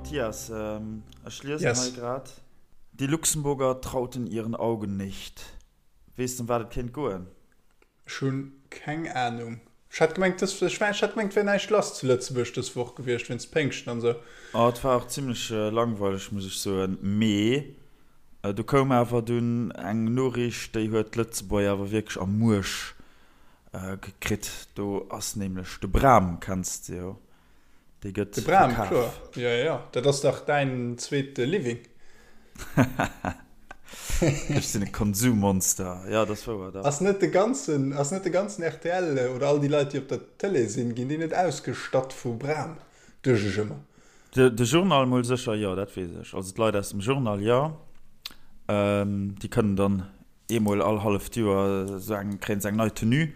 Mathias, ech liesen hei grad, Die Luxemburger trauten ihren Augen nicht. Weess de, ëm wat et kéint goen? Ech hunn keng Ahnung. Ech hat gemengt dës, ech hat gemengt et wär näischt lass zu Lëtzebuerg dës Woch gewiescht wéinst Péngschten an esou. Oh, et war och zimlech langweileg, muss ech soen. Mee do koum awer dunn eng Noriicht, déi huet d'Lëtzebuerger awer wierklech am Muerch gekritt. Do ass nämlech de Bram, kenns de jo, Dee gëtt De Bram, verkaf. kloer. Jo, jo, jo. Dat ass dach däin zweete Living. Ech sinn e Konsummonster. Jo, dat ass wouer, dach. Ass net de ganzen, ass net de ganzen rtl oder all déi Leit, déi op der Tëlee sinn, ginn déi net ausgestatt vu Bram? Duecht ech ëmmer. De Journal mol sécher, jo, dat weess ech. Also d'Leit aus dem Journal, jo. Déi kënnen dann Eemol all halleft Joer sou eng, kréien se eng nei Tenue.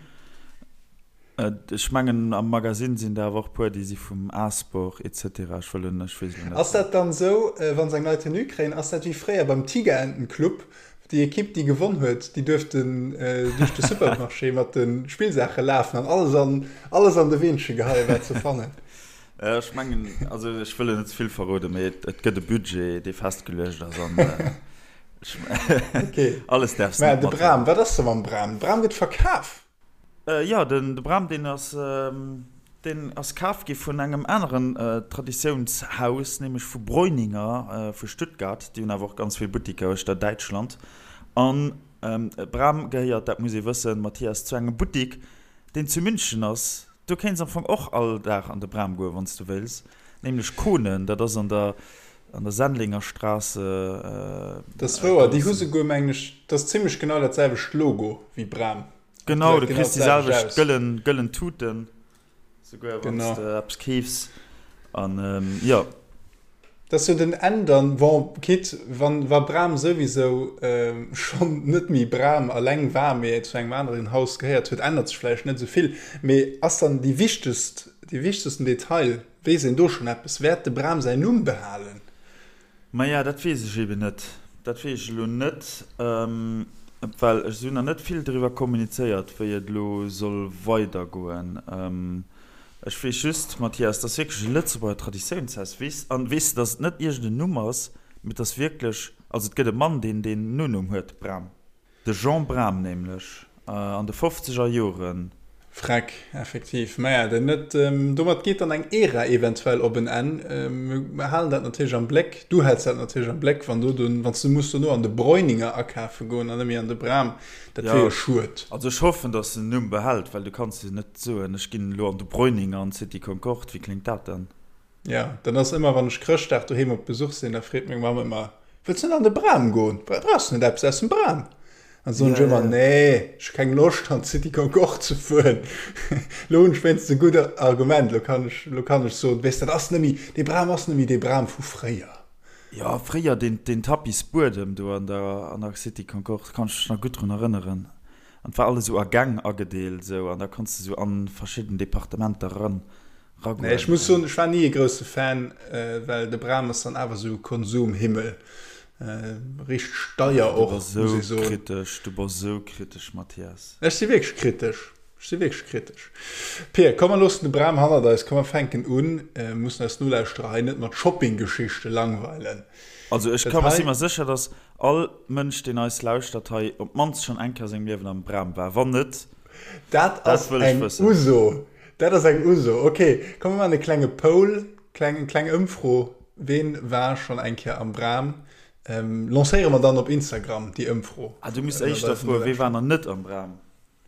Ech mengen am Magasinn sinn der awer och puer, déi si vum A-Sport etc. Ech wëll elo, ech weess elo net. Ass dat dann sou, wa se eng nei Tenue kréien, ass dat wéi fréier beim Tigerentenclub, déi Ekipp déi gewonn huet, déi duerften duerch de Supermarché mat de Spillsaache lafen an alles an alles an de Weenche geheien, wat se fannen? Ech mengen, also ech wëll elo net ze vill verroden, mee et gëtt e Budget, dee festgeluecht ass an Okay. Alles därfs net Mä de Bram, wat ass da mam Bram? De Bram gëtt verkaf. Jo, den de Bram, deen ass, deen ass kaf gi vun engem aneren Traditiounshaus, nämlech vu Breuninger vu Stuttgart. Déi hunn awer och ganz vill Buttiker uechter Däitschland. An Bram gehéiert, dat muss ee wëssen, Mathias, zu engem Buttik, deen zu München ass. Du kéints am Fong och all Dag an de Bram goen, wann s du wéils, nämlech Kone, dat ass an der an der Sendlinger Straße. Dat ass wouer, déi hu souguer, mengen ech, dat ass zimmlech genau dat selwecht Logo wéi Bram. Genau, du kriss déi selwecht gëllen, gëllen Tuten, souguer wann s de eppes keefs. An jo. Dat ass jo den Enn dann, bon, quitte wann wa Bram souwisou schonn net méi Bram alleng war, mee zu engem aneren Haus gehéiert huet, ännert sech vläicht net esou vill. Mee ass dann déi wichtegst, dee wichtegsten Detail, Weess een do schonn eppes? Wäert de Bram säin Numm behalen? Maja, dat weess ech eben net. Dat weess ech elo net, well ech si hunn nach net vill driwwer kommunizéiert, wéi et elo soll weidergoen. Ech weess just, Mathias, et ass wierklech e Lëtzebuerger Traditiounshaus. Weess, an weess de, datt et net iergend en Numm ass, mee et ass wierklech, also et gëtt e Mann, deen deen Nonumm huet, Bram. De Jean Bram nämlech, an de fofzeger Joren. Freck, effektiv. Maja, den net. Domat geet dann eng Ära eventuell op en Enn. Mir halen dat natierlech am Bléck. Du häls dat natierlech am Bléck, wann du dunn, wann s du muss dono an de Breuninger akafe goen an net méi an de Bram. Dat wier jo schued. Also ech hoffen, datt en den Numm behält, well du kanns jo net soen, ech ginn elo an de Breuninger an d'City Concorde. Wéi kléngt dat dann? Jo, dat ass ëmmer, wann ech Chrëschtdag doheem op Besuch sinn, da freet meng Mamm ëmmer, Wëlls net an de Bram goen? Brauchs du net eppes aus dem Bram? An da soen ech ëmmer, Nee, ech hu keng Loscht an d'City Concorde ze fueren. Lo hunn ech wéinstens e gutt Argument, lo kann ech, lo kann ech soen, Weess, dat ass net méi, dee Bram ass net méi dee Bram vu fréier. Jo, fréier deen, deen Tapis-Buedem do an der, an der City Concorde, kann ech mech nach gutt drun erënneren. An et war alles esou a Gäng agedeelt esou, an da konns de esou an verschidden Departementer eran. Nee, ech muss soen, ech war ni e grousse Fan, well de Bram ass dann awer sou Konsumhimmel. Richteg deier och, muss ee soen. Du bass sou kritesch, du bass sou kritesch, Mathias. Ech si wierklech kritesch, ech si wierklech kritesch. Pir, komm mer loossen de Bram hannert eis, komm mer fänken un. Mir mussen eis Nolauschterer hei net mat Shoppinggeschichte langweilen. Also ech ka, si mer sécher, dass all Mënsch, deen eis lauschtert hei, op d'mannst schonn eng Kéier a sengem Liewen am Bram war. Wann net, dat wëll ech wëssen. Dat ass eng Uso. Dat ass eng Uso. Ok, komm mir maachen e klenge Poll, kleng, eng kleng Ëmfro, Ween war schonn eng Kéier am Bram? Lancéiere mer dann op Instagram déi Ëmfro. Ah, du misst éischter froen, Wee war nach net am Bram?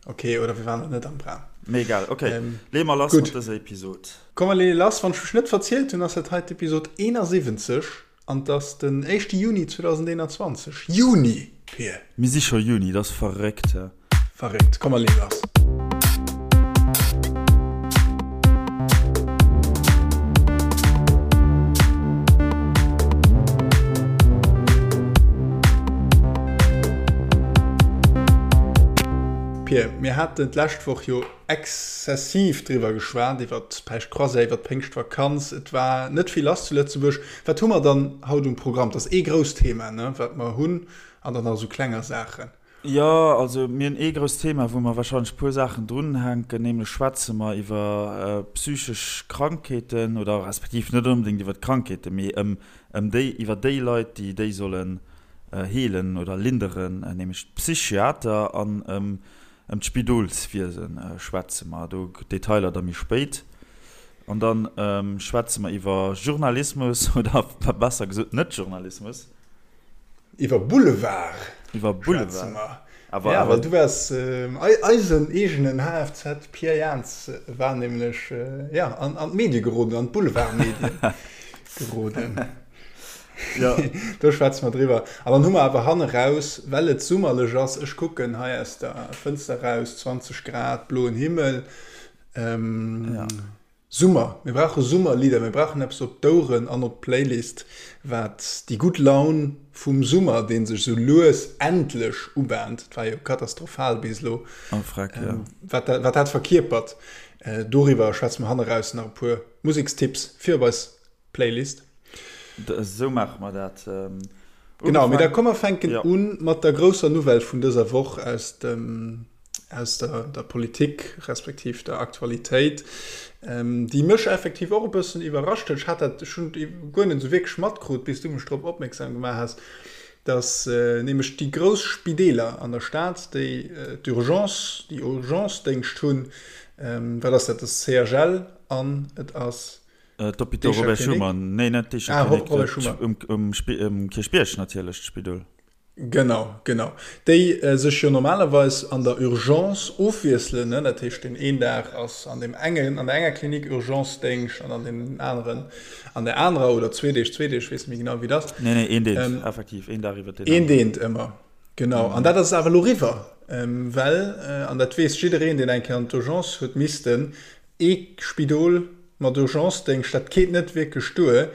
Ok, oder wee war nach net am Bram? Mee egal, ok, leeë mer lass mat dëser Episod. Komm mer leeë lass. Wann ech mech net verzielt hunn, ass dat hei d'Episod 71. An 't ass den éischte Juni 2021. Juni, Pir! Mir si scho Juni, dat ass verréckt, he? Verréckt. Komm mer leeë lass. Pir, mir haten d'lescht Woch jo exzessiv driwwer geschwat, iwwer d'Päischtcroisière, iwwer d'Péngschtvakanz. Et war net vill lass zu Lëtzebuerg. Wat hu mer dann haut um Programm? Dat ass ee grousst Thema, ne, wat mer hunn, an dann nach esou klenger Saachen. Jo, also mir hunn ee grousst Thema, wou mer wahrscheinlech e puer Saachen drunhänken, nämlech schwätze mer iwwer psychesch Krankheeten oder respektiv net onbedéngt iwwer d'Krankheeten, mee ëm ëm déi, iwwer déi Leit, déi déi sollen heelen oder linderen, nämlech d'Psychiater an ëm ëm d'Spidolswiese schwätze mer. Do Detailer da méi spéit. An da schwätze mer iwwer Journalismus oder besser gesot Net-Journalismus. Iwwer Boulevard Iwwer schwätze mer. Awer, ja, well du waars eisen eegenen HFZ Pierre Jans war nämlech ja, an, an d'Medie geroden, an d'Boulevardmedien geroden. Ja. Do schwätze mer driwwer. An dann hu mer awer hanne raus, well et summerlech ass, ech kucken hei aus der Fënster raus, 20 Grad, bloen Himmel. Ähm, ja. Summer, mir brauche Summerlidder, mir brauchen eppes op d'Oueren an op d'Playlist, wat déi gutt Laun vum Summer, dee sech esou lues endlech ubahnt, et war jo katastrophal bis elo, wat dat wat verkierpert. Doriwwer schwätze mer hanneraus nach e puer Musekstipps fir op eis Playlist. Esou maache mer dat. Genau, mee da komm mer fänken u mat der grousser Nouvelle vun dëser Woch aus dem, aus der, der Politik respektiv der Aktualitéit, déi mech effektiv och e bëssen iwwerrascht huet. Ech hat dat, ech hunn et guer net esou wierklech matkrut, bis du mech drop opmierksam gemaach has, dass nämlech déi grouss Spideeler an der Stad, déi d'Urgence, déi Urgencedéngscht hunn, wat ass dat, dat ass CHL an et ass D'Hôpital Robert Schuman, nee net d'Eecher Klinik, ah, Robert Schuman. Um, um Kierchbierg natierlech, d'Spidol. Genau, genau. Déi sech jo normalerweis an der Urgence ofwiesselen, ne? Dat heescht, deen een Dag ass an deem engen, an der enger Klinik Urgencedéngscht an an deem aneren an der anerer, oder zwee Deeg, zwee Deeg, weess net méi genau, wéi et ass. Nee, nee, een Deent, ähm, effektiv, een Dag iwwer deen aneren. Een Deent ëmmer, genau. An dat ass awer elo eriwwer, well, an dat weess jiddereen, deen eng Kéier an d'Urgence huet missten, Ee Spidol mat Urgencedéngscht, dat geet net wierklech duer.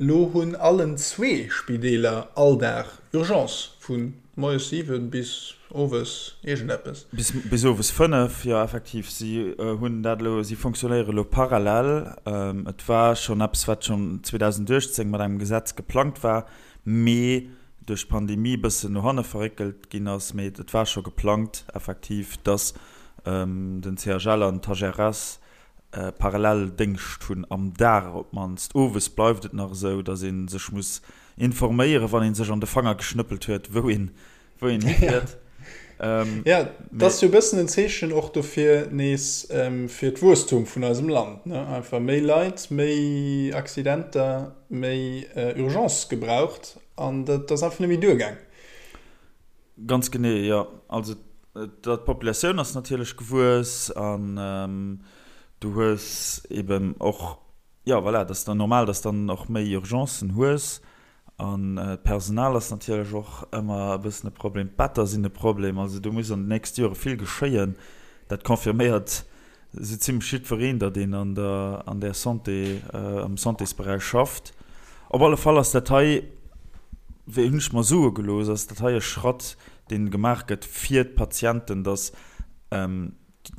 Lo hunn allen zwee Spideeler all Dag Urgence, vu moies 7 bis owes iergendeppes. Bis owes 5, jo effektiv. Si hunn dat elo, si fonctionnéiere elo parallel. Et war schonn eppes, wat schonn 2018 mat engem Gesetz geplangt war, mee duerch d'Pandemie e bëssen no hanne verréckelt ginn ass. Mee et war scho geplangt effektiv, dass den CHL an d'HRS parallel Déngscht hunn, am Dag op d'mannst. Owes bleift et nach esou, datt ee sech muss informéieren, wann ee sech an de Fanger geschnëppelt huet, wou een wou een hifiert. Jo, dat ass jo e bëssen en Zeechen och dofir nees fir d'Wuesstum vun eisem Land, ne? Einfach méi Leit, méi Accidenter, méi Urgence gebraucht an dat ass einfach net méi duergaang. Ganz genee, jo. Also d'Populatioun ass natierlech gewuess an du hues eben och, jo voilà, et ass dann normal, dass dann och méi Urgencen hues an d'Personal ass natierlech och ëmmer e bëssen e Problem, d'Better sinn e Problem. Also do muss an den nächste Jore vill geschéien. Dat confirméiert Esou zimlech jiddwereen, datt een an der, an där Santé, am Santésberäich schafft. Op alle Fall ass dat hei, wéi hunn ech mer soe gelooss, ass dat hei e Schratt, dee gemaach gëtt fir d'Patienten, datt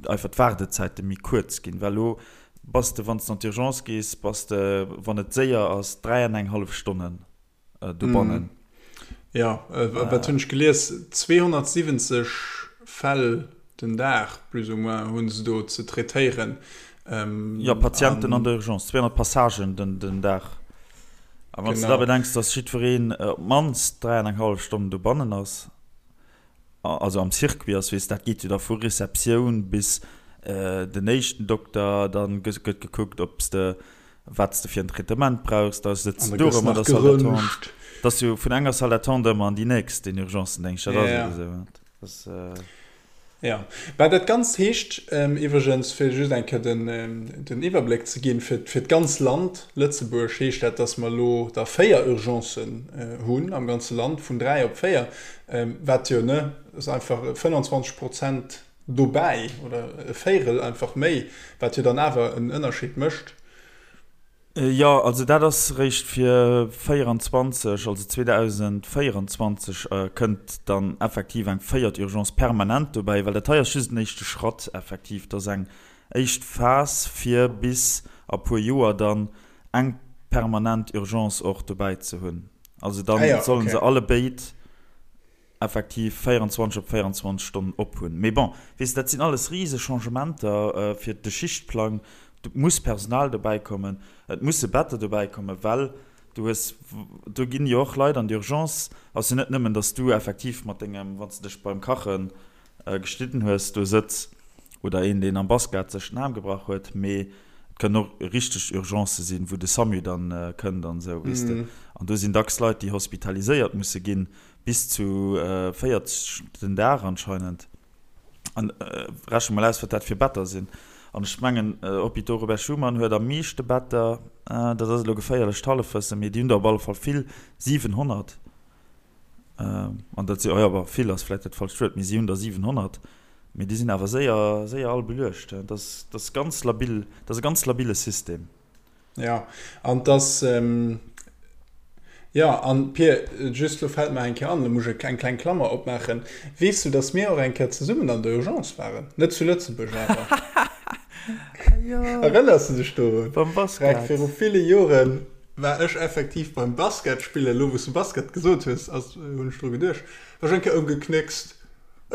einfach d'Waardezäite méi kuerz ginn. Well elo bass de, wann s de an d'Urgence gees, bass de, wann et séier ass, 3 an eng hallef Stonnen. dobannen. Jo, wat hunn ech gelies, 270 Fäll den Dag plus ou moins hu se do ze traitéieren. Jo, Patienten an der Urgence, 200 Passagen den Dag. A wann s de da bedenks, datt jiddwereen op d'mannst 3 an eng hallef Stonnen dobannen ass, also am Circuit ass, weess, dat geet jo da vu Receptioun bis den éischten Dokter, da gëtt gekuckt, ob s de, wat s de fir en Traitement brauchs, da sëtz de do erëm an der Salle d'attente. Dat ass jo vun enger Salle d'attente ëmmer an déi nächst, den Urgencendéngscht, dat ass ebe esou. Dat ass. Jo, mä dat Ganzt heescht iwwregens, fir just eng Kéier den Iwwerbléck ze ginn, fir d'ganz Land Lëtzebuerg heescht dat, datt mer elo der 4 Urgencen hunn am ganze Land, vun 3 op 4, wat jo, ne, ass einfach 25 Prozent dobäi oder e Véirel einfach méi, wat jo dann awer en Ënnerscheed mécht. Jo, also dat ass réischt fir 24, also 2024 kënnt dann effektiv eng véiert Urgence permanent dobäi, well dat hei ass just en éischte Schratt effektiv. Dat ass eng éischt Phas fir bis a puer Joer dann eng permanent Urgence och dobäi ze hunn. Also da sollen se allebéid. effektiv 24 op 24 Stonnen op hunn. Mee bon, weess de, dat sinn alles rise Changementer fir de Schichtplang. Et muss Personal dobäi kommen, et musse Better dobäi kommen, well du hues, do ginn jo och Leit an d'Urgence. Ass jo net nëmmen, datt s du effektiv mat dengem, wann s de dech beim Kache geschnidden hues, do sëtz oder een, deen am Basket sech den Aarm gebrach huet, mee et kënnen och richteg Urgencë sinn, wou de SAMU dann kënnt an esou, weess de. An do sinn dacks Leit, déi hospitaliséiert musse ginn, bis zu 40 den Dag anscheinend. An rechne mol aus, wat dat fir Better sinn. An ech mengen, Hôpitaux Robert Schuman huet am meeschte Better, dat ass elo geféierlecht Hallefwëssen, mee déi hunn der op alle Fall vill, 700. An dat si, oh jo, bon, vill ass vläicht dat falscht Wuert, mee si hunn der 700, mee déi sinn awer séier, séier all beluecht. Dat ass, dat ass ganz labil, dat ass e ganz labile System. Jo, an et ass, jo, an Pir, just elo fält mer eng Kéier an, elo muss ech eng kleng Klammer opmaachen, Weess du, datt mir och eng Kéier zesummen an der Urgence waren? Net zu Lëtzebuerg awer. Erënners du dech dorun? Beim Basket. Viru ville Joren war ech effektiv beim Basket spillen, elo wou s du Basket gesot hues, ass, hunn ech dru geduecht, war ech eng Kéier ëmgeknéckst,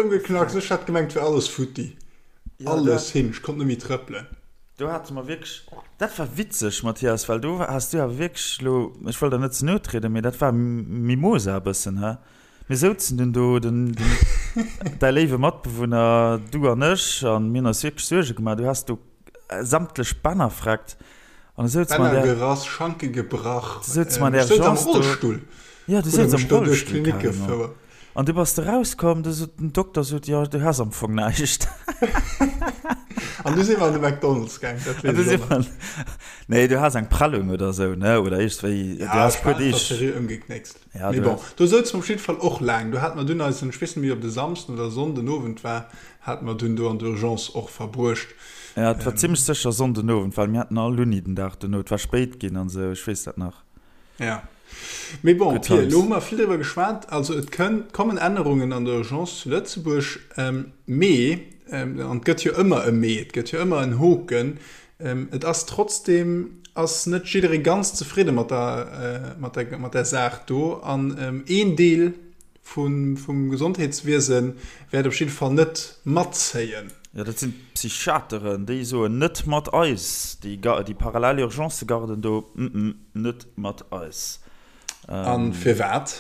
ëmgeknackst, ech hat gemengt, et wär alles futti, alles hin, ech konnt net méi trëppelen. Do hate mer wierklech, dat war witzeg, Mathias, well do has du awer wierklech elo, ech wëll der net ze no trieden, mee dat war Mimosa e bëssen, he? Mir souzen dunn do, den, däi léiwe Matbewunner, du an ech, an mir hunn eis wierklech Suerge gemaach. Du has do sämtlech Bänner vreckt an du souz mer an Bänner där, gerass, Schanke gebrach, du souz mer an där ech souz am Urgence do, Rollstull, ja, du huet e souz am mech do duerch Rollstull d'Klinik carrément. gefouert. An du bass de rauskomm, du sot, den Dokter sot, jo, du has am Fong näischt. An du si mer an de McDonald's gaang, dat weess ech och nach. Nee, du has eng Prellung oder sou, ne, oder iergendwéi, du Ja, has ech war puer einfach Deeg. seriö ëmgeknéckst. Ja, Mee du bon, has. do souze mer op jidde Fall och laang. Do hate mer dunn eisen, ech weess net méi, ob et e Samsden oder e Sonnden Owend war, hate mer dunn do an der Urgence och verbruecht. Ja, et war zimmlech sécher Sonnden Owend, well mir haten all Uni den Dag dono. Et war spéit ginn an sou, ech weess dat nach. Ja. Mee bon, Good Pir, elo hu mer vill driwwer geschwat. Also et kënn, kommen Ännerungen an der Urgence zu Lëtzebuerg. Mee, an et gëtt jo ëmmer e Mee, et gëtt jo ëmmer en Hoken, et ass trotzdeem, ass net jidderee ganz zefridde mat der, mat der, mat där Saach do. An een Deel vum Gesondheetswiese wäert op jidde Fall net matzéien. Jo, dat sinn d'Psychiateren, déi soen, net mat eis, déi parallel Urgencëgarden do, mm, net mat eis. A firwat?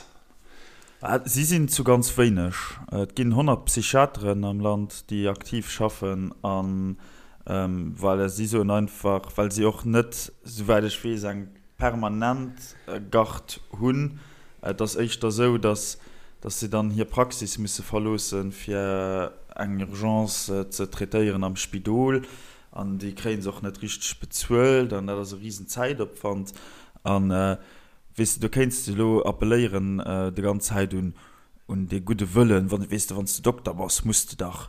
Si sinn zu ganz wéineg. Et ginn 100 Psychiateren am Land, déi aktiv schaffen. A voilà, si soen einfach, well si och net, souwäit ech weess, eng permanent Garde hunn. Et ass éischter esou, datt si dann hir Praxis musse verloossen, fir eng Urgence ze traitéieren am Spidol. An déi kréie se och net richteg bezuelt an dat ass e risen Zäitopwand. An, weess de, do kéints de elo appelléieren déi ganz Zäit un dee gudde Wëllen, weess de, wann s de Dokter bass, muss de dach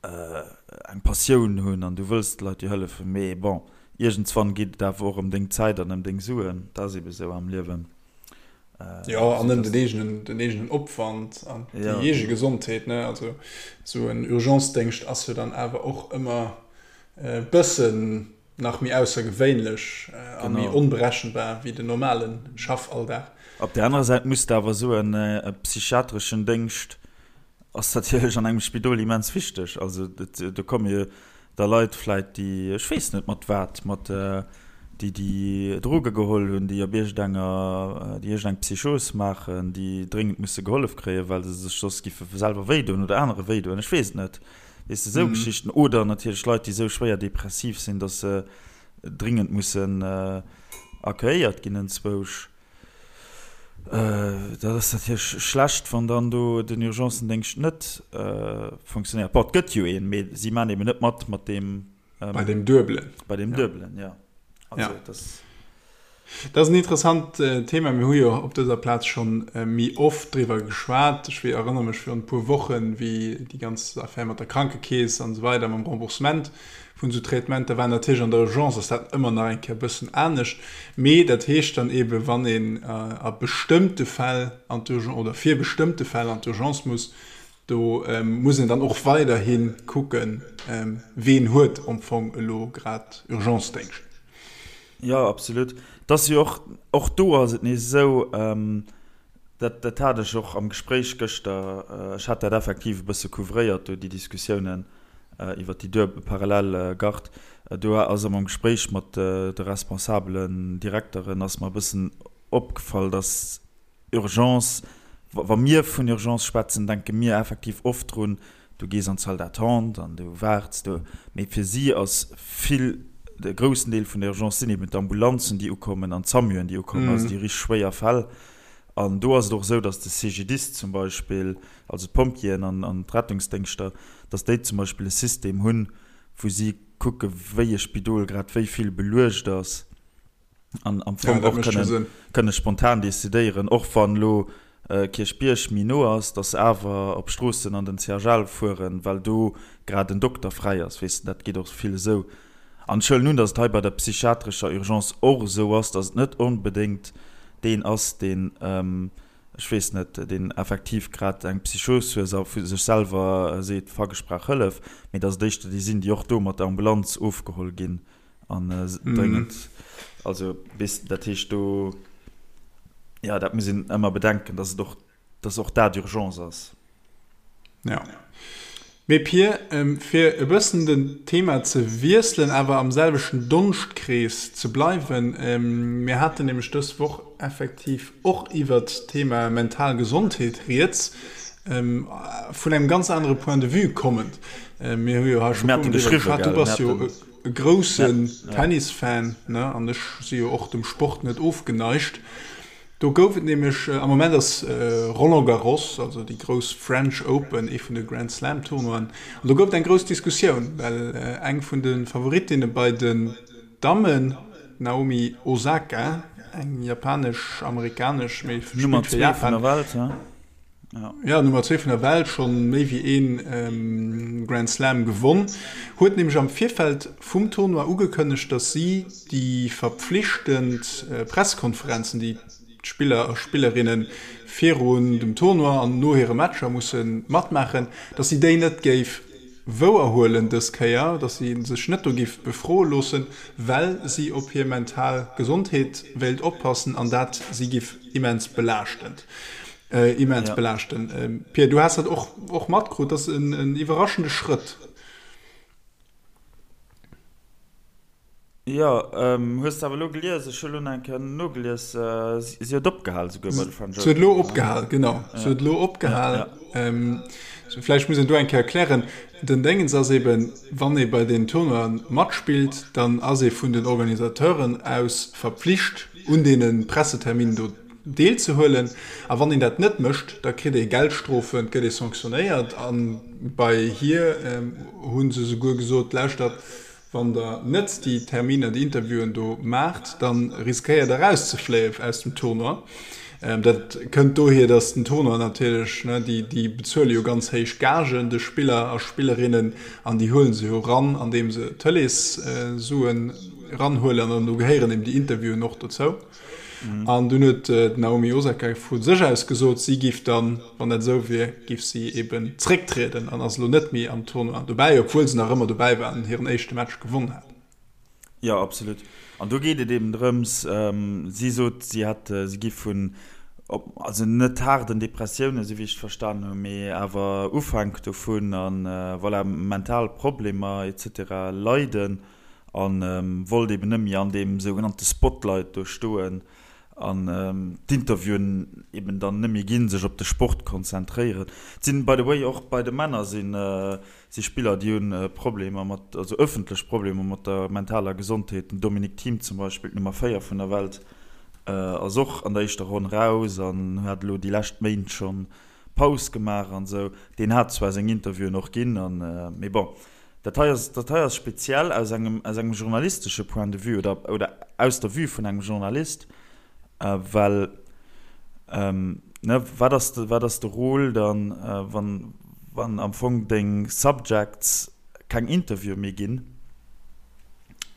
eng Passioun hunn an du wëlls de Leit jo hëllefen, mee bon, iergendswann geet et awer och ëm deng Zäit an ëm deng Suen, dat ass ebe sou am Liewen. Jo, an ëm den eegenen, den eegenen Opwand an déi eege Gesondheet, ne? Also esou en Urgencedéngscht ass jo dann awer och ëmmer e bëssen nach méi aussergewéinlech a méi onberechenbar wéi den normale Schaffalldag. Op där anerer Säit muss de awer soen, e psychiatreschen Déngscht ass natierlech an engem Spidol immens wichteg. Also do komme jo da Leit vläit, déi, ech weess net mat wat, mat déi déi Droge geholl hunn, déi op iergendenger, déi iergendeng Psychos maachen, déi dréngend musse gehollef kréien, well se sech soss giffe selwer wéidoen oder anere wéidoen, ech weess et net, weess de, esou Geschichten. Oder natierlech Leit, déi esou schwéier depressiv sinn, datt se dringend mussen accueilléiert ginn enzwousch. Dat ass natierlech schlecht, wann dann do den Urgencendéngscht net funktionéiert. Bon, et gëtt jo een, mee si maachen eben net mat mat deem. Bei deem Duebelen. Bei deem Duebelen, jo. Also dat ass. Dat ass en interessant Thema. Mir hu jo op dëser Plaz schonn méi oft driwwer geschwat. Ech erënnere mech virun e puer Wochen, wéi déi ganz Affär mat der Krankekeess an esou weider, mam Remboursement vun esou Traitementer war. Natierlech an der Urgence ass dat ëmmer nach eng Kéier e bëssen anescht, mee dat heescht dann eebe wann een a bestëmmte Fäll an d'Urgence oder fir bestëmmte Fäll an d'Urgence muss, do muss een dann och weiderhi kucken, ween huet am Fong elo grad Urgencedéngscht. Jo, absolut. Et ass jo och, och do ass et nees esou,. Dat, dat hat ech och am Gespréich gëschter, ech hat dat effektiv e bësse couvréiert do, déi Diskussiounen iwwert déi duebel parallel Garde. Do ass am Gespréich mat de responsabelen Direkteren ass mer e bëssen opgefall, dass Urgence, wa mir vun Urgence schwätzen, denke mir effektiv oft drun, du gees an d'Salle d'attente an du waarts do. Mee fir si ass vill, de groussen Deel vun der Urgence sinn eben d'Ambulanzen, déi ukommen an d'SAMUen, déi ukommen, also déi richteg schwéier Fäll. An do ass et och esou, datt de CGDIS zum Beispill, also d'Pompjeeën an d'Rettungsdéngschter, datt déi zum Beispill e System hunn, wou si kucke wéi e Spidol grad wéi vill beluecht ass an am Fong och kënne spontan decidéieren, och wann elo Kierchbierg méi no ass, datt se awer op Stroossen an den CHL fueren, well do grad en Dokter fräi ass. Weess de, dat geet och vill esou. An ech huelen un, datt et hei bei der psychiatrescher Urgence och esou ass, datt et net onbedéngt deen ass, deen, ech weess net, deen effektiv grad eng Psychos huet a vu sech selwer seet, fuck, ech brauch Hëllef, mee datt et éischter déi sinn, déi och do mat der Ambulanz ofgeholl ginn an dréngend, also weess de, dat heescht do, jo, dat muss een ëmmer bedenken, datt et och, datt och dat Urgence ass. Ja. Mee Pir, fir e bëssen den Thema ze wiesselen, awer am selwechten Donschtkrees ze bleiwen, mir haten nämlech dës Woch effektiv och iwwert d'Thema mental Gesondheet rieds, vun engem ganz anere Point de vue kommend. Mir hu jo hei scho puer Mol driwwer geschwat, du bass jo e groussen Tennisfan, ne, an ech si jo och dem Sport net ofgeneigt. Do gouf et nämlech, am Moment ass Roland Garros, also déi grouss French Open, ee vun de Grand Slam Tournoien, an do gouf et eng grouss Diskussioun, well eng vun de Favorittinne bei den Dammen, d'Naomi Osaka, eng japanesch-amerikanesch, mee spillt fir Japan, Jo, Nummer zwee vun der Welt, schonn méi wéi ee Grand Slam gewonn, huet nämlech am Virfeld vum Tournoi ugekënnegt, datt si déi verpflichtend Pressekonferenzen, déi d'Spiller a Spillerinne virun dem Tournoi an no hire Matcher musse matmaachen, datt si déi net géif wouerhuelen dës Kéier, datt si sech net do géif befroe loossen, well si op hir mental Gesondheet wéilt oppassen an dat si géif immens belaaschtend. Immens ja. belaaschten. Ähm, Pierre, du hast dat och, och matkrut, dat ass en, en iwwerraschende Schrëtt. Jo, ähm, hues de awer elo gelies, ech hu lo nach eng Kéier nogelies, äh, si, si huet opgehal souguer bei de French Open. Si huet elo opgehal, genau. Ja. Si huet elo opgehal. Ja, ja. Ähm, vläicht muss een do eng Kéier erklären, den Déngens ass eben, wann ee bei den Tournoien matspillt, dann ass ee vun den Organisateuren aus verpflicht, un deene Presseterminen do deelzehuelen. A wann een dat net mécht, da kritt ee Geldstrofen, et gëtt ee sanctionéiert. A bei hir hu se souguer gesot, Lauschtert, wann Der net déi Terminer, déi Interviewen do maacht, da riskéiert Der erauszefléien aus dem Tournoi. Dat kënnt dohier, datt den Tournoi natierlech, déi bezuele jo ganz héich Gagen de Spiller a Spillerinnen an déi huele se jo ran, andeem se Tëleessuen eranhuelen an do gehéieren eben déi Interviewen och dozou. An dunn huet d'Naomi Osaka vu sech aus gesot, si giff dann, wann dat esou wier, giff si eben zrécktrieden an ass elo net méi am Tournoi dobäi, obwuel se nach ëmmer dobäi war an hiren éischte Match gewonn hat. Jo, absolut. An do geet et eben drëms, si sot, si hätt, si giff vun, also net haarden Depressiounen, esou wéi ech et verstanen hunn, mee awer Ufänk dovun a voilà, mental Problemer et cetera leiden. A wollt eben net méi an deem sougenannte Spotlight do stoen an d'Interviewen eben dann net méi ginn, sech op de Sport konzentréieren. Et sinn by the way och bei de Männer sinn si Spiller, déi hunn Problemer mat, also ëffentlech Problemer mat der mentaler Gesondheet. Den Dominic Thiem zum Beispill, d'Nummer 4 vun der Welt, ass och an der éischter Ronn raus an hat elo déi lescht Méint schonn Paus gemaach an esou. Deen hat zwar seng Interviewen och ginn an, mee bon. Dat hei ass, dat hei ass speziell aus engem, aus engem journalistesche Point de vue oder, oder aus der Vue vun engem Journalist, well, ne, wat ass de, wat ass de Rôle dann, wann, wann am Fong deng Subjects keng Interviewe méi ginn,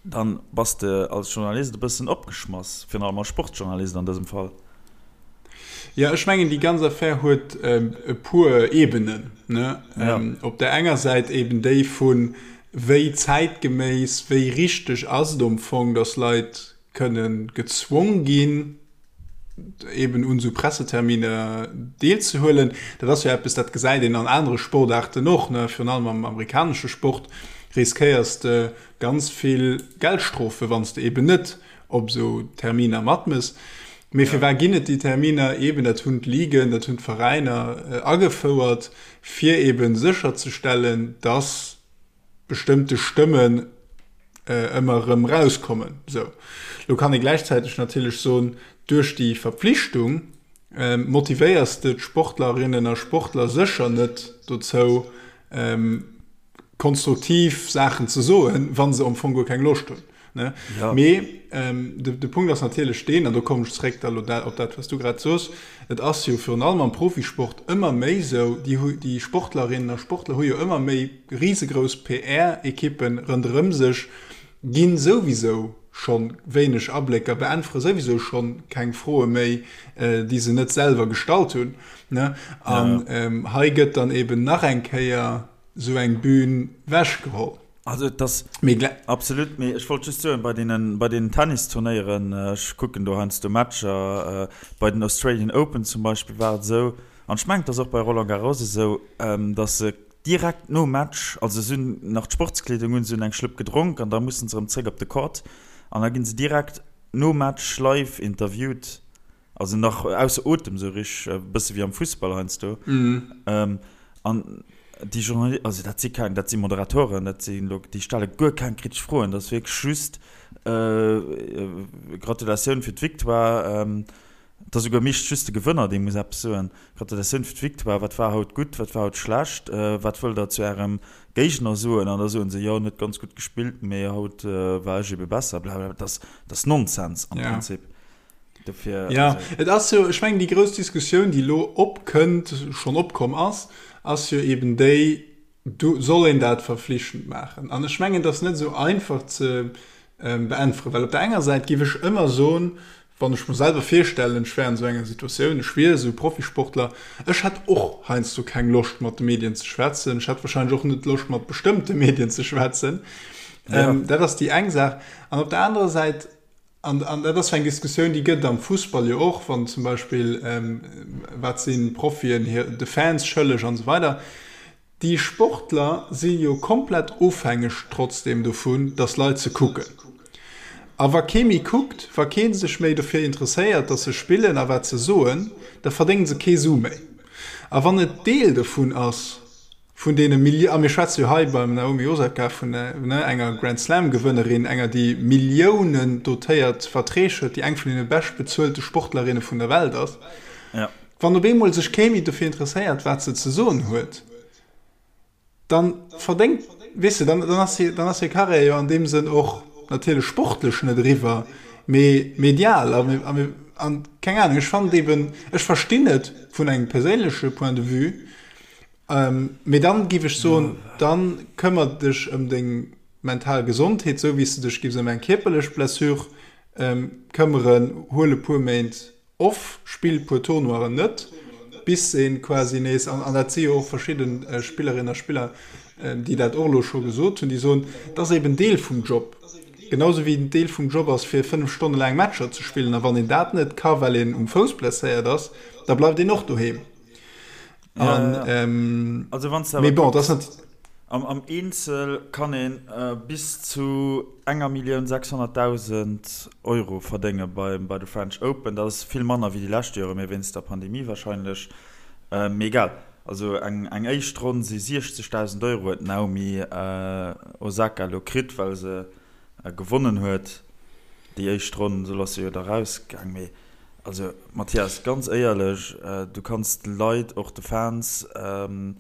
dann bass de als Journalist e bëssen opgeschmass, virun allem als Sportjournalist an dësem Fall. Jo, ech mengen, déi ganz Affär huet e puer Ebenen. Ne? Ja. Op der enger Säit eben déi vun, wéi zäitgeméiss, wéi richteg ass et am Fong, datt Leit kënne gezwong ginn. eben un esou Presseterminer deelzehuelen. Dat ass jo eppes, dat gesäit een an anere Sportaarten och, ne, virun allem am amerikanesche Sport riskéiers de ganz vill Geldstrofe wann s de eben net op esou Terminer matmëss. Mee firwat ginn et déi Terminer? Eben, dat hunn d'Ligen, dat hunn d'Veräiner agefouert, fir eben sécherzestellen, dass bestëmmte Stëmmen ëmmer erëm erauskommen. Esou, lo kann ee gläichzäiteg natierlech soen, duerch déi Verpflichtung motivéiers de d'Sportlerinnen a Sportler sécher net dozou, konstruktiv Saachen ze soen, wa se am Fong guer keng Loscht hunn. Ne? Ja. Mee ähm, de, de Punkt ass natierlech deen, an do kommen ech zréck da lo op dat, wat du grad soos, et ass jo virun allem am Profisport ëmmer méi sou, déi, déi Sportlerinnen a Sportler hu jo ëmmer méi risegrouss PR-Ekippen ronderëm sech, ginn souwisou scho wéineg Ablécker, beäntwere souwisou scho keng Froe méi, äh, déi se net selwer gestallt hunn. Ne? An ja. ähm, hei gëtt dann eben nach eng Kéier sou eng Bühn wechgeholl. Also et ass absolut, mee ech wollt just soen, bei deenen, bei deenen Tennisturnéieren, ech kucken do heiansdo Matcher, bei den Australian Open zum Beispill war et esou, an ech mengen et ass och bei Roland Garros esou, datt se direkt nom Match, also se hunn nach d'Sportskleedung un, se hunn eng Schlëpp gedronk an da mussen se erëm zréck op de Court an da ginn se direkt nom Match live interviewt. Also nach ausser Otem sou rich, e bësse wéi am Fussball heiansdo. An déi Journalisten, also dat si keng, dat si Moderatoren, dat si lo, déi stelle guer keng kritesch Froen. Dat ass wierklech just Gratulatioun fir d'Victoire. Et ass esouguer meeschtens just de Gewënner, dee muss eppes soen. Gratulatioun fir d'Victoire, wat war haut gutt, wat war haut schlecht, wat wëllt Der zu Ärem Géigner soen? An da soen se, jo, en huet ganz gutt gespillt, mee haut war ech ebe besser, blablabla. Dat ass Nonsens am Prinzip. Dofir, ja, also. Et ass jo, ech mengen, déi grouss Diskussioun, déi elo opkënnt, schonn opkomm ass, ass jo eben déi, du, soll een dat verflichtend maachen? An ech mengen, et ass net esou einfach ze beäntweren, well op der enger Säit géif ech ëmmer soen, wann ech mer selwer virstellen, ech wär an esou enger Situatioun, ech wier esou Profisportler, ech hätt och heiansdo keng Loscht mat de Medien ze schwätzen, ech hätt wahrscheinlech och net Loscht mat bestëmmte Medien ze schwätzen. Ja. Dat ass déi eng Saach. An op der anerer Säit, An, an dat ass jo eng Diskussioun, déi gëtt et am Fussball jo och, wann zum Beispill, wat sinn d'Profien hir, de Fans schëlleg an esou weider. Déi Sportler si jo komplett ofhängeg trotzdeem dovun, datt Leit se kucken. A wa kee méi kuckt, wa kee sech méi dofir interesséiert, datt se spillen a wat se soen, da verdéngen se kee Su méi. A wann et Deel dovun ass, Vun deene Milli-, a mir schwätze jo hei beim Naomi Osaka vun enger Grand-Slam-Gewënnerin, enger déi Milliounen dotéiert Verträg huet, déi eng vun deene beschtbezuelte Sportlerinne vun der Welt ass. Wann op eemol sech kee méi dofir interesséiert, wat se ze soen huet, da verdéngt, weess de, dann ass hir, dann ass hir Karriär jo an deem Sënn och natierlech sportlech net eriwwer, mee medial. A mir, an keng Anung, ech fannen et eben, ech verstinn et vun engem perséinleche Point de vue, Mee dann giff ech soen, dann këmmer dech ëm deng mental Gesondheet, sou wéi s de dech giffs ëm eng kierperlech Blessure këmmeren. Huel e puer Méint off, spill puer Tournoiren net, bis een quasi nees, an dat si jo och verschidden Spillerinnen a Spiller, déi dat och elo scho gesot hunn, déi soen, et ass eben Deel vum Job, genau sou wéi et Deel vum Job ass fir 5 Stonne laang Matcher ze spillen. A wann een dat net ka well een um Fouss blesséiert ass, da bleift een och doheem. An, ja, ja. Ähm, also wann du bon, das net am, am Eenzel kann een äh, bis zu enger Millioun 600.000 Euro verdénge beim, bei de French Open. Dat ass vill manner wéi déi lescht Jore, mee wéinst der Pandemie wahrscheinlech. Äh, mee egal. Also eng, eng éischt Ronn si 60.000 Euro huet d'Naomi äh, Osaka lo kritt, well se äh, gewonnen huet déi éischt Ronn. Esou ass se jo da rausgaang. Mee Also Mathias, ganz éierlech, du kanns de Leit, och de Fans an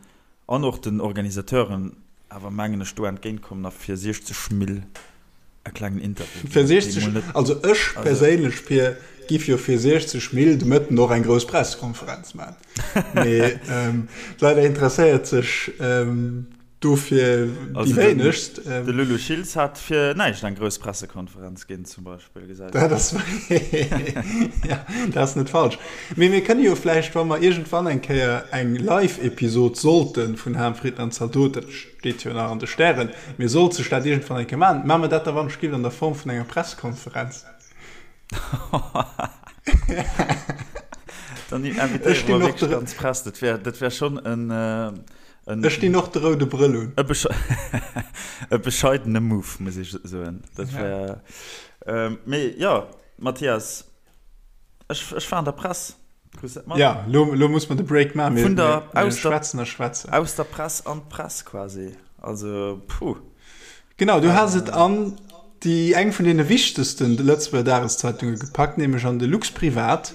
och den Organisateuren awer mengen ech do entgéint kommen a fir 60 Mill e klengen Interview ginn. Fir 60, also ech perséinlech Pir, giff jo fir 60 Mill de Mëtten och eng grouss Pressekonferenz man. Mee leider interesséiert sech Dofir déi wéinegst. De Lulu Schiltz hat fir näischt eng grouss Pressekonferenz ginn zum Beispill, gesäit een. Dat ass, ja, dat ass net falsch. Mee mir kënne jo vläicht, wa mer iergendwann eng Kéier eng Live-Episod sollte vun Ham, Fritten an Zaldot, dat steet jo nach an de Stären, mee sollt sech dat iergendwann eng Kéier maachen, maache mer dat da wann ech giff an der Form vun enger Pressekonferenz. Dann invitéiere mer wierklech d'ganz Press. Dat wär, dat wär schonn en, en. Ech dinn och de roude Brëll un. E besche, e bescheidene Move, muss ech soen. Dat wär, mee jo, Mathias, ech, ech war an der Press. Krus dat mat? Ja, lo, lo muss mer de Break maachen. Mir, Vun der, mir, aus der, schwätzen a schwätzen. Aus der Press an d'Press quasi. Also, puh. Genau, du has et an déi eng vun deene wichtegsten Lëtzebuerger Dageszeitunge gepackt, nämlech an de Luxprivat.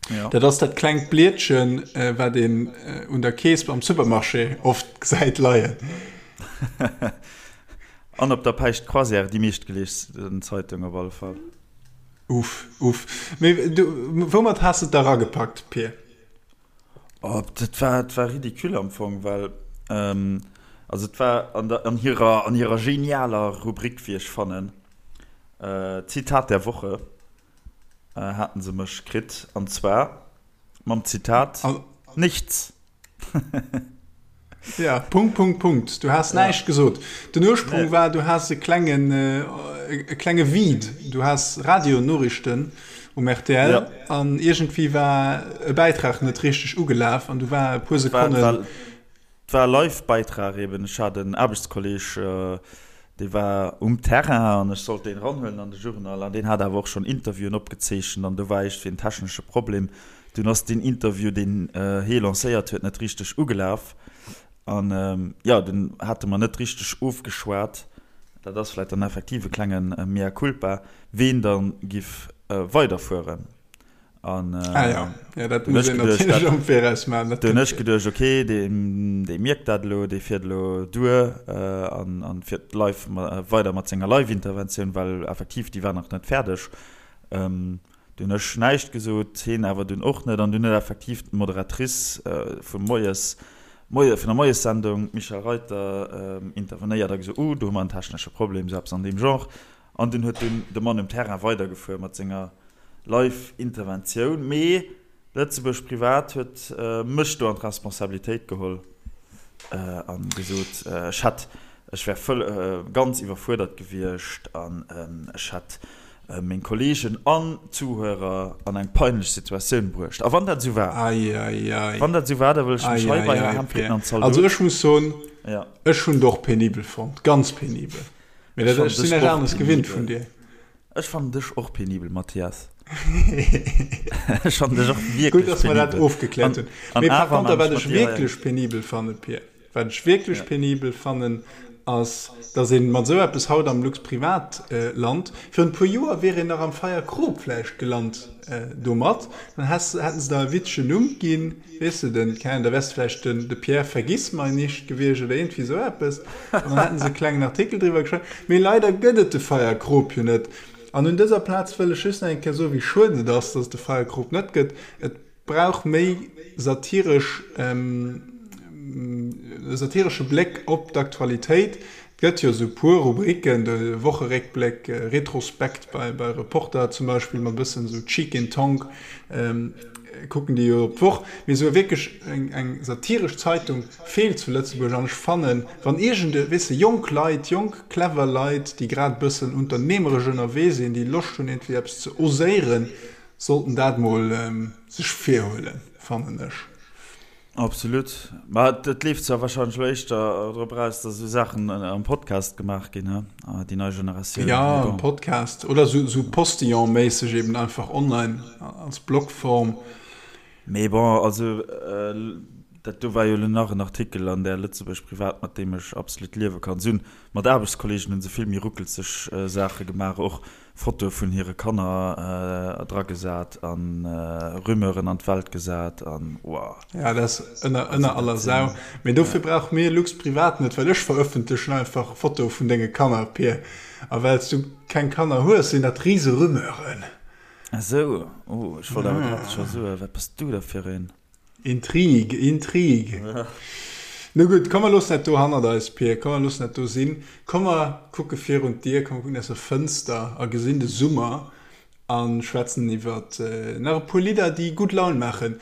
Ja. Dat ass dat klengt Blietchen, wat een un der Kees am Supermarché oft gesäit leien. An op der Päischt Croisière, déi meeschtgeliesten Zeitung op alle Fall. Uff, uff. Mee du, woumat has de et da ragepackt, Pir? Oh, dat war, dat war ridicule am Fong, well, also et war an der, an hirer, an hirer genialer Rubrik, wéi ech fannen, Zitat der Woche, haten se mech kritt, an zwar mam Zitat, Nichts. Ja, Punkt, Punkt, Punkt. Du has näischt gesot. Den Ursprung war, du has e klengen, e klenge Vide. Du has Radionoriichten um rtl an iergendwéi war e Bäitrag net richteg ugelaf an du war e puer Sekonnen. Et war e Live-Bäitrag eben. Ech hat en Aarbechtskolleg, dee war um Terrain an ech sollt deen eranhuelen an de Journal an deen hat awer och schonn Interviewen opgezeechent an do war iergendwéi en technesche Problem. Dunn ass deen Interview, deen hee lancéiert huet, net richteg ugelaf. An jo, dunn hate mer net richteg ofgeschwat, dat ass vläicht dann effektiv e klenge Mea culpa, ween da giff weiderfueren. An dunn hu ech geduecht, dat, dunn hu ech geduecht, okay, dee mierkt dat elo, dee fiert elo duer an fiert live weider mat senger Live-Interventioun, well effektiv, déi war nach net fäerdeg. Du hunn ech näischt gesot, heen awer dunn och net. An dunn huet effektiv d'Moderatrice vum Moies, Moie, vun der Moiessendung, d'Michèle Reuter, intervenéiert a gesot, Uh, do hu mer en technesche Problem, esou eppes an deem Genre. An dunn huet dunn de Mann um Terrain weidergefuer mat senger Live-Interventioun. Mee Lëtzebuerg Privat huet mech do an d'Responsabilitéit geholl a gesot, ech hätt, ech wär vëll, ganz iwwerfuerdert gewiescht an ech hätt meng Kolleegen an d'Zuhörer an eng peinlech Situatioun bruecht. A wann dat esou war, wann dat esou war, da wëll ech mech hei bei Här Hempfritten an Zaldot. Also ech muss soen, ech hunn et och penibel fonnt, ganz penibel. Mee dat, ech sinn näischt aneres gewinnt vun dir. Ech fannen dech och penibel, Mathias. Ech fannen dech och wierklech penibel. Gutt, dass mer dat ofgekläert hunn. Mee par conter, wat ech wierklech penibel fannen, Pir, wat ech wierklech penibel fannen, ass, dass ee mat esou eppes haut am Luxprivat lant. Virun e puer Joer wier een nach am Feierkrop vläicht gelant domat. Dann häss, hätten se der e witzegen Numm ginn. Weess de, den, keng Ahnung, da wäers de vläicht den, de Pierre Vergissmeinnicht gewiescht oder iergendwéi esou eppes. An dann hätten se e klengen Artikel driwwer geschriwwen. Mee leider gëtt et de Feierkrop jo net. An un dëser Plaz wëll ech just nach eng Kéier soen, wéi schued et ass, dass et de Feierkrop net gëtt. Et brauch méi satiresch, e satiresche Bléck op d'Aktualitéit. Et gëtt jo esou puer Rubriken, de Wocheréckbléck, Retrospekt bei Reporter zum Beispill, mat e bëssen esou Cheek in Tongue kucken déi jo op d'Woch. Mee esou wierklech eng satiresch Zeitung feelt zu Lëtzebuerg. An ech fannen, wann iergend e, weess de, jonk Leit, jonk clever Leit, déi grad e bëssen unternehmeresch ënnerwee sinn, déi Loscht hunn iergendwéi eppes ze oséieren, sollten dat mol sech virhuelen, fannen ech. Absolut. Ma et leeft zwar wahrscheinlech elo éischter drop eraus, dass esou Saachen am Podcast gemaach ginn, he? Déi nei Generatioun. Jo, am Podcast oder esou Postillon-méisseg eben einfach online als Blogform. Mee bon, also dat do war jo elo nach en Artikel an där Lëtzebuerg Privat, mat deem ech absolut liewe kann. Si hunn mat Aarbechtskolleegen hu se vill méi ruckelzeg Saache gemaach och. Fotoe vun hire Kanner dragesat an Rumeuren an d'Welt gesat an woah. Ja, dat ass ënner ënner aller Sau. Mee dofir brauche mir Lux Privat net, well ech verëffentlechen einfach Fotoe vun denge Kanner, Pir. A well s du keng Kanner hues, sinn dat rise Rumeuren. Esou, oh, ech wollt awer grad scho soen, wat bass du da fir een? Intrigue, Intrigue. No gutt, komm mer loossen dat do hannert eis, Pir, komm mer loossen dat do sinn. Komm mer kucke virun d'Dier, komm mer kucken aus der Fënster a gesinn de Summer a schwätzen iwwer nach e puer Lidder, déi gutt Laun maachen.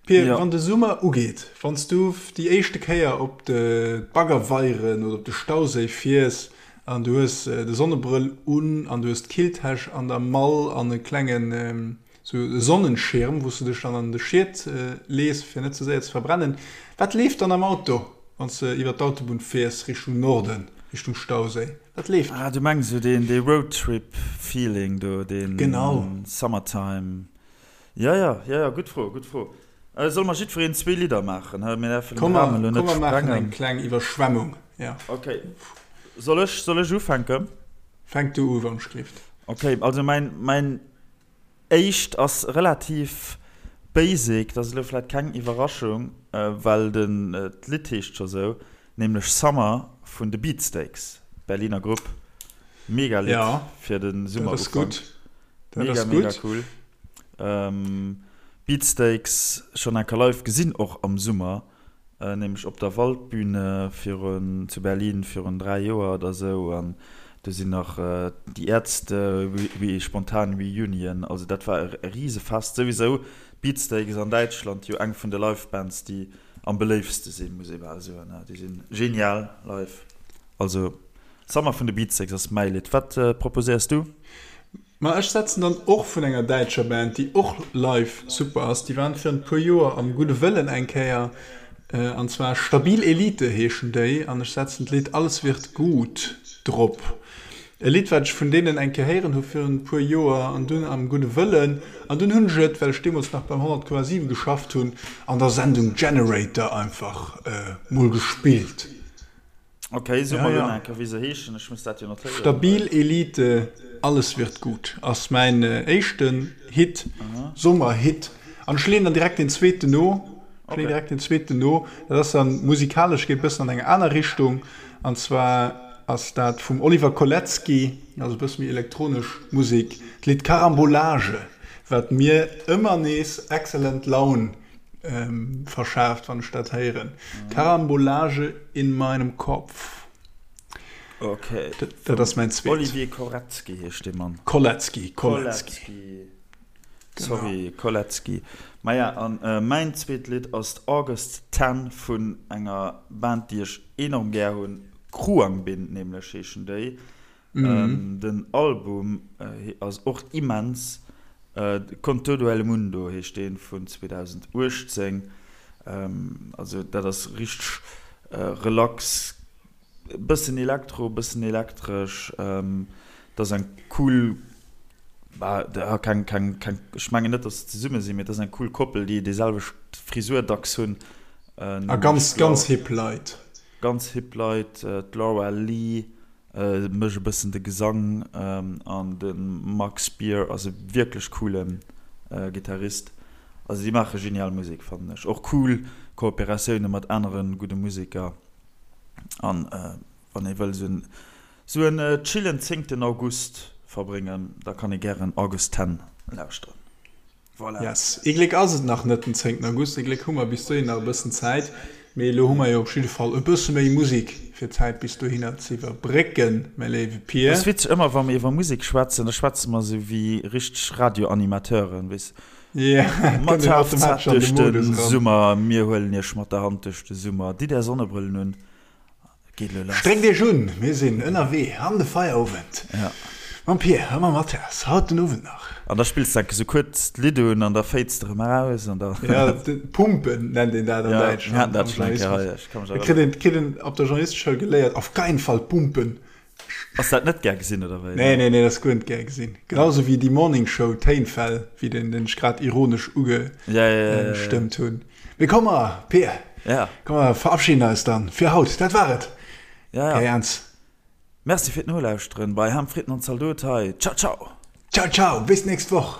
Pir, wann de Summer ugeet, wann s du déi éischte Kéier op d'Baggerweieren oder op de Stauséi fiers an du hues de Sonnebrëll un an du hues d'Killtäsch an der Mall an e klengen. Sou e Sonnenschirm, wou s de dech dann an de Schiet lees, fir net ze séier ze verbrennen. Wat leeft dann am Auto, wann s de iwwer d'Autobunn fiers Richtung Norden, Richtung Stauséi? Wat leeft? Ah, du mengs esou deen, dee Roadtrip-Feeling do, deen Genau. Summertime. Jo, jo, jo, jo, gutt Fro, gutt Fro. Solle mer jiddwereen zwee Lidder maachen, hä? Mir däerfen den Komm mer, Rahmen elo net komm mer maachen sprengen. eng kleng Iwwerschwemmung, jo. Okay. Soll ech, soll ech ufänken? Fänk du u, wann ech gelift. Okay, also mäin, mäin Éischt ass relativ basic, dat ass elo vläit keng Iwwerraschung, well den d'Lidd heescht scho sou, nämlech Summer vun de Beatsteaks, Berliner Grupp. Mega Lidd fir de Summerufank. Mega mega cool. Beatsteaks schonn enker live gesinn, och am Summer. Nämlech op der Waldbühne virun, zu Berlin virun 3 Joer oder sou an do sinn nach Die Ärzte spontan Reunion, also dat war e Risefest. Souwisou Beatsteaks an Däitschland jo eng vun de Live-Bands déi am beléiftste sinn, muss ee bal soen. Déi sinn genial live. Also Summer vun de Beatsteaks ass mäi Lidd. Wat proposéiers du? Ma ech setzen dann och vun enger däitscher Band, déi och live super ass. Déi waren virun e puer Joer am Gudde Wëllen eng Kéier, an zwar Stabil Elite heeschen déi, an ech setzen d'Lidd Alles wird gut drop. E Lidd, wat ech vun deenen eng Kéier héieren hu virun e puer Joer an dunn am Gudde Wëllen, an dunn hunn ech et, well ech deemools nach beim 100,7 geschafft hunn, an der Sendung Generator einfach mol gespillt. Ok, so ja, ja. Enker, wéi se heeschen, ech muss dat jo notéieren. Stabil Elite, Alles wird gut ass mäin éischten Hit, Sommerhit. An ech leeën dann direkt deen zweeten no. Ech leeën direkt deen zweeten no. Dat ass dann musikalesch, geet bëssen an eng aner Richtung. An zwar ass dat vum Oliver Koletzki, also e bësse méi elektronesch Musek, d'Lidd Carambolage, wat mir ëmmer nees excellent Laun verschaaft, wann ech dat héieren. Karambolage in meinem Kopf. Okay. Dat, dat ass mäin zweet. Olivier Koretzky heescht dee Mann. Koletzki, Koletzki. Sorry, Koletzki. Maja, an mäin zweet Lidd ass d'August Ten vun enger Band, déi ech enorm gär hunn. Khruangbin nämlech heeschen déi. Den Album ass och immens. Con todo el mundo heescht deen vun 2018. Also dat ass richteg relax, e bëssen Elektro, e bëssen elektresch. Dat ass eng cool, keng, keng, keng, ech mengen net, datt se zesumme sinn, mee dat ass eng cool Koppel, déi déi selwecht Frisur dacks hunn. A ganz, ganz hip Leit. Ganz hip Leit, d'Laura Lee mécht e bëssen de Gesang an de Mark Spear ass e wierklech coole Gittarist. Also déi maache genial Musek fannen ech. Och cool Kooperatioune mat anere gudde Museker. An wann ee wëll sou en chillen zéngten August verbréngen, da kann ee gären August Ten lauschteren. Voilà. Yes. Ee Gléck ass et nach net den 10 August, ee Gléck hu mer bis dohin nach e bëssen Zäit. Mee elo hu mer jo op jidde Fall e bësse méi Musek fir d'Zäit bis dohinner ze iwwerbrécken, mäi léiwe Pir. Et ass witzeg, ëmmer wa mir iwwer Musek schwätzen, da schwätze mer esou wéi richteg Radioanimateuren, weess, Ja, et mat kënnt een HFZ automatesch an de duerch de Modus eran. Summer, mir huelen iech mat der Hand duerch de Summer, ditt är Sonnebrëllen un, Geet elo lass. Stréckt iech un, mir sinn ënnerwee an de Feierowend mam Pir a mam Mathias, haut den Owend nach. An da spills de enke sou kuerz d'Lidd un an da fades de rëm eraus an da. Ja, Pumpen nennt een dat an Ja, Däitschland. mir haten dat schonn eng Kéier hei, ech ka mech Da kritt erënneren. een, kritt een op der Journalisteschoul geléiert, auf keinen Fall pumpen. Ass dat net gär gesinn, oder wéi? Nee, nee, nee, dat ass guer net gär gesinn. Genau sou wéi déi Morning Show Téinfäll, wéi den, den ech grad ironesch ugestëmmt hunn. Mee komm mer, Pir, ja. komm mer verabschieden eis dann fir haut. Dat war et. Ja, ja. Kai Ernz. Merci fir d'Nolauschteren bei Ham, Fritten an Zaldot hei. Ciao, ciao. Ciao, ciao, bis nächst Woch.